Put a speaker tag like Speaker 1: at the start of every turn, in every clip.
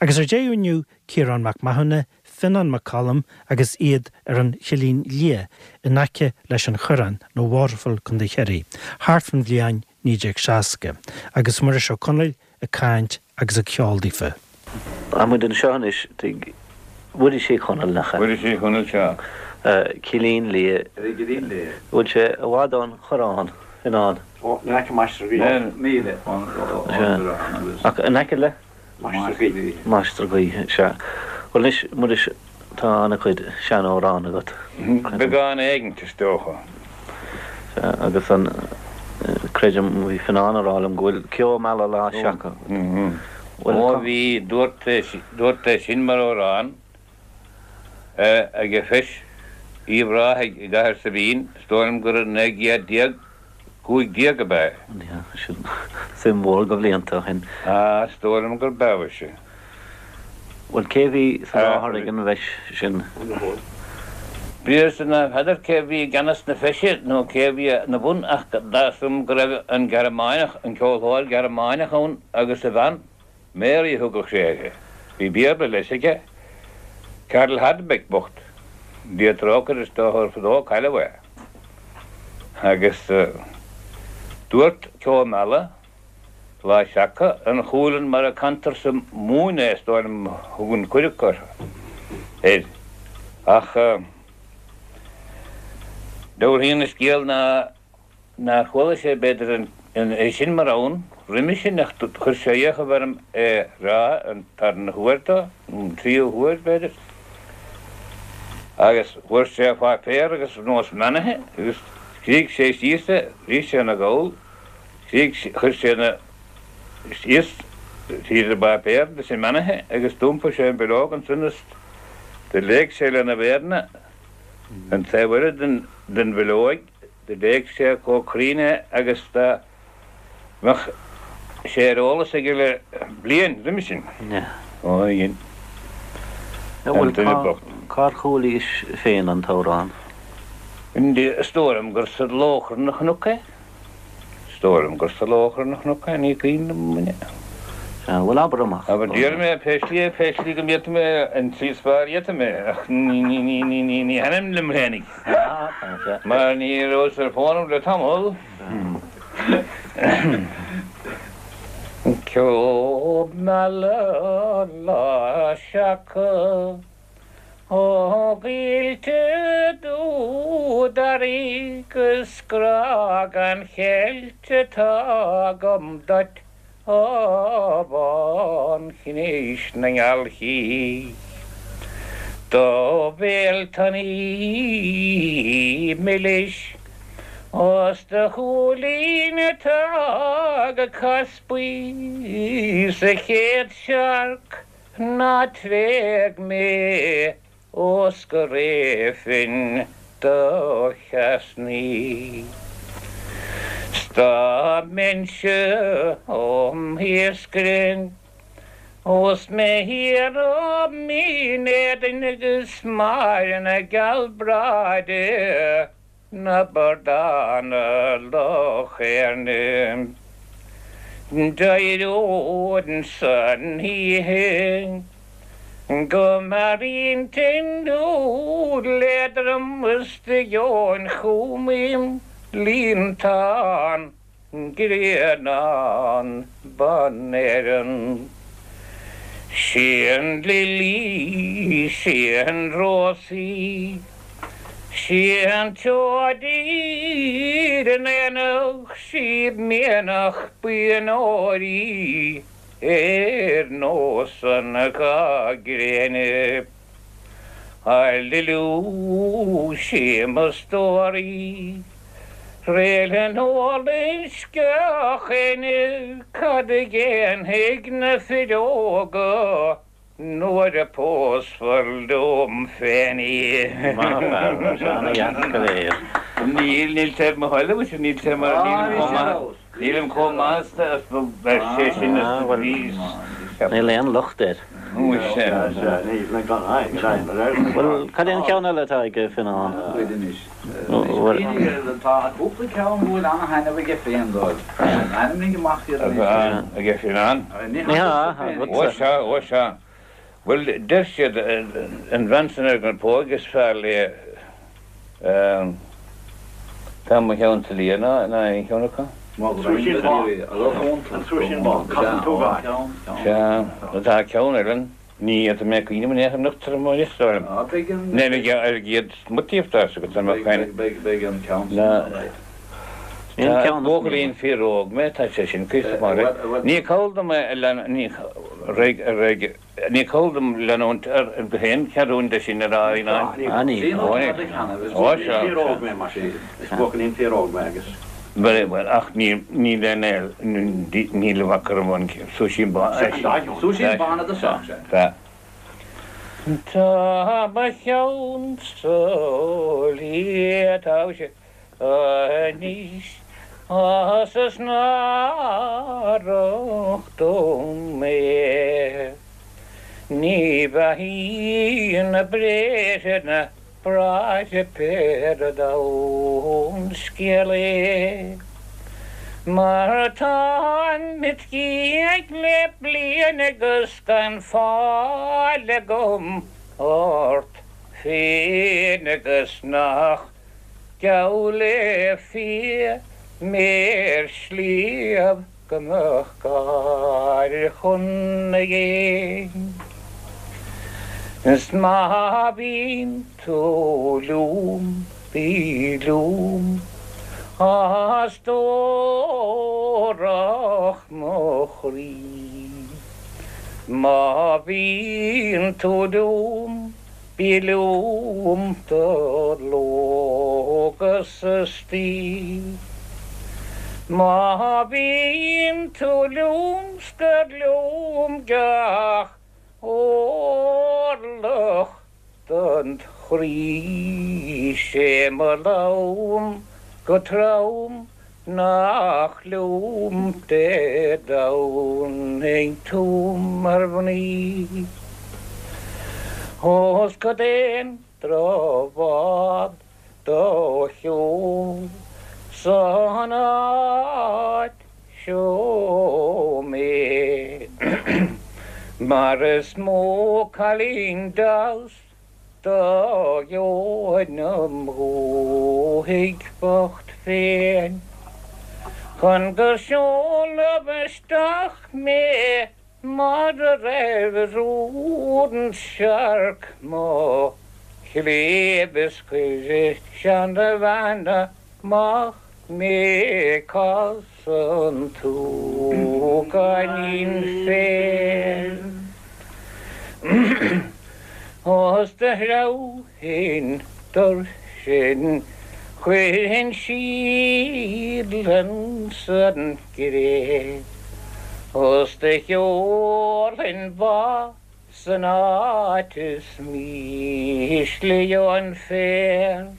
Speaker 1: Agus ar deireadh inniu, Ciarán Mac Mathúna, Fionnán Mac Coluim agus iad ar an Chillín Liath in aice leis an Choireán, nó Waterville, Co. Chiarraí, thart fan bhliain 1960, agus Muiris Ó Conaill ag caint agus ag ceol daofa.
Speaker 2: Tá muid anseo anois tigh Mhuiris Uí Chonaill, nach ea?
Speaker 3: Muiris Uí Chonaill, sea.
Speaker 2: Cillín Liath.
Speaker 4: Ar an gCillín Liath.
Speaker 2: Bhfuil sé i bhfad ón Choireán, Fionnán?
Speaker 4: Ó, in aice Mainistir Gaoithe. Míle ón Choireán
Speaker 2: agus. Ach in aice le?
Speaker 4: Mainistir Gaoithe.
Speaker 2: Mainistir Gaoithe, sea. Bhuel anois, Muiris, tá an-chuid sean-amhrán agat.
Speaker 3: Beagán éigint, is dócha.
Speaker 2: Sea, agus an, creidim, bhí Fionnán ag rá liom go bhfuil Ceo Meala Lá Seaca
Speaker 3: agat. Bhuel, Ó bhí, dúrt é, dúrt é sin mar amhrán ag Feis Uíbh Ráthaigh i gCathair Saibín, is dóigh liom gur i 1915 ab ea
Speaker 2: é. Sin suim mhór de bhlianta ó shin.
Speaker 3: Á, is dóigh liom gur b'ea mhuise.
Speaker 2: Bhuel, cé bhí sa láthair ag an bhfeis sin?
Speaker 3: B'fhios ná n'fheadar cé bhí i gceannas na feise nó cé bhí ina bun ach dar liom go raibh an Gearmáineach, an ceoltóir Gearmáineach ann agus a bhean, Mary a thugadh sé uirthi. Bhí Béarla leis aige. Karl Hardebeck bocht. Dia trócaire is dócha gur fadó a cailleadh é. Agus dúirt Ceo Meala Lá Seaca, an Chualann mar a cantar sa Mumhain é is dóigh liom a thugann cuid acu air. Ach dealraíonn an scéal ná nár chuala sé b'fhéidir é sin mar fhonn roimhe sin ach chuir sé fhiachaibh orm é rá an tarna huair dó, nó an tríú huair b'fhéidir. Agus fuair sé páipéar agus nós meanaithe agus scrígh sé síos é, bhí sé ina ghabhal. Chuir sé na síos tríd an bpáipéar leis an meanaithe agus d'iompaigh sé an bileog ansan is do léigh sé lena mhéireanna an taobh eile den bhileoig, do léigh sé chomh cruinn é agus dá mbeadh sé ar eolas aige le bliain roimis sin. Ó, dhein
Speaker 2: an duine bocht. Cár chualaís féin an t-amhrán?
Speaker 3: Is dóigh liom gur sa Lóchrann a chonac é. Is dóigh liom gur sa Lóchrann a chonac é, ní cuimhin liom muine.
Speaker 2: Sea, bhuel abair amach.
Speaker 3: Abair, déarfaidh mé pé slí é, pé slí go bhféadfaidh mé, an tslí is fearr a fhéadfaidh mé, ach ní, ní, ní, ní, ní, ní thaitním liom fhéinig. Mar ní rabhas ar fónamh le tamall. Ceo meala lá seaca. Ó gcoillte dúdharaí 'gus grá gan cheilt atá agam duit a bhánchnis na ngealchaí. Do bhéal tanaí milis 's do shúilín atá go caspaí sa chéad searc Ná tréig mé ós go réabfainn do cheasnaí. 'S dá mbeinnse 'om iascaire ós mé thiar ó Mhín Éadain agus Máire na gealbhráide na bardána Loch Éirne. D'éireoinn san oíche go mearaí tinn dúil éadrom is do gheobhainn chugam im líontán. Grianán Ban Éireann. Sí an lilí, sí an rós í, sí an tseoid ar an aonach, sí mianach buíon óir í ar nós an gha gréine. A Liliú, sí mo stór í. Réaltán álainn sceach-éinne, cad a dhéanfaidh na fir óga nuair a pósfar liom féin í?
Speaker 2: Maith fear, tá sé ana-dheas go léir.
Speaker 3: Níl, níl sé ar mo thoil, mhuise, níl sé mar, nílim chomh maith. Nílim chomh maith is a sé sin is a bhí.
Speaker 2: Níl aon locht air. Bhuel, cad é an ceann eile atá ag Fionnán?
Speaker 4: Tá cúpla ceann go bhfuil ana-thaitneamh aige féin dóibh. Ainmnigh amach iad anois.
Speaker 3: Aige Fionnán?
Speaker 2: Ní hea, agatsa.
Speaker 3: Ó sea, ó sea. Bhuel, deir siad, an bhean san ar an bpóig is fearr léi Tá mo cheann sa liath ná aon cheann acu.
Speaker 4: An Súisín Bán, An Súisín Bán, Casann tú gáir.
Speaker 3: Sea, tá ceann eile ann, ní fhéadfaidh mé cuimhneamh in aon chor anocht ar an mbóthar is dóigh liom. Níl ar an gcéad smuttaíocht as agat an mbeadh aon.
Speaker 4: Beidh an ceann sin ann, right.
Speaker 3: Tá buachaillín fíor-óg mé, tá sé sin cuíosach maith. Ní call dom é a lean, ní, réidh, réidh. Ní call dom leanúint ar go haon cheathrúin de sin ar aghaidh ná.
Speaker 4: Ní. Ó, sea. Fíor-óg mé, mar sin. Is buachaillín fíor-óg mé agus.
Speaker 3: Bhuel, bhuel, ach ní, níl aon aol, níl i bhfaca orm an Súisín Bán.
Speaker 4: Súisín Bán i dtosach, sea.
Speaker 3: Sea. Tá mo cheann sa liath, tá sé anois 's is náireach dom é. Ní bheathaíonn na bréithre na bráithre pé ar domhan scéal é. Mar táim it dhiaidh le bliain agus gan fáil agam ort féin agus nach Geall le fia mé ar shliabh go mbeadh gáir chun na gcéin. Is má bhíonn tú liom, bí liom, a stórach mo chroí. Má bhíonn tú liom, Bí liom do ló agus istoíche. Má bhíonn tú liom scair liom gach orlach den chroí. 'Sé mo lom go trom nach liom Dé Domhnaigh tú mar mhnaoi. Ós cad é an drochbhád do sheol san áit seo mé, mar is mó cailín deas Do gheobhainn im dhúthaigh bhocht féin chun gur seoladh isteach mé mar a raibh rún searc mo chléibh is chuir seanabhean amach mé Casann tú gainín féir Os do threabhfainn duirsin Chuirfinn síol insan gcré Os do sheolfainn ba San áit is mísle gheobhainn féar,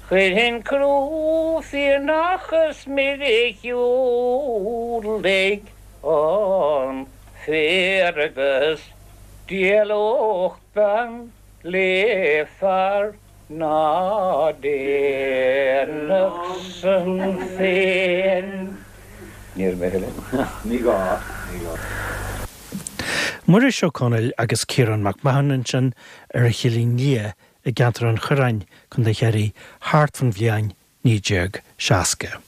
Speaker 3: chuirfinn crú fianach is mire shiúlaigh an féar agus d'éalódh bean le fear ná déanfadh san féin. Ní raibh mé
Speaker 4: a thuilleadh. Ní gá, ní gá.
Speaker 1: Muiris Ó Conaill agus Ciarán Mac Mathúna ansin ar an Chillín Liath i gceantar an Choireáin, Co. Chiarraí, thart fan bhliain 1960.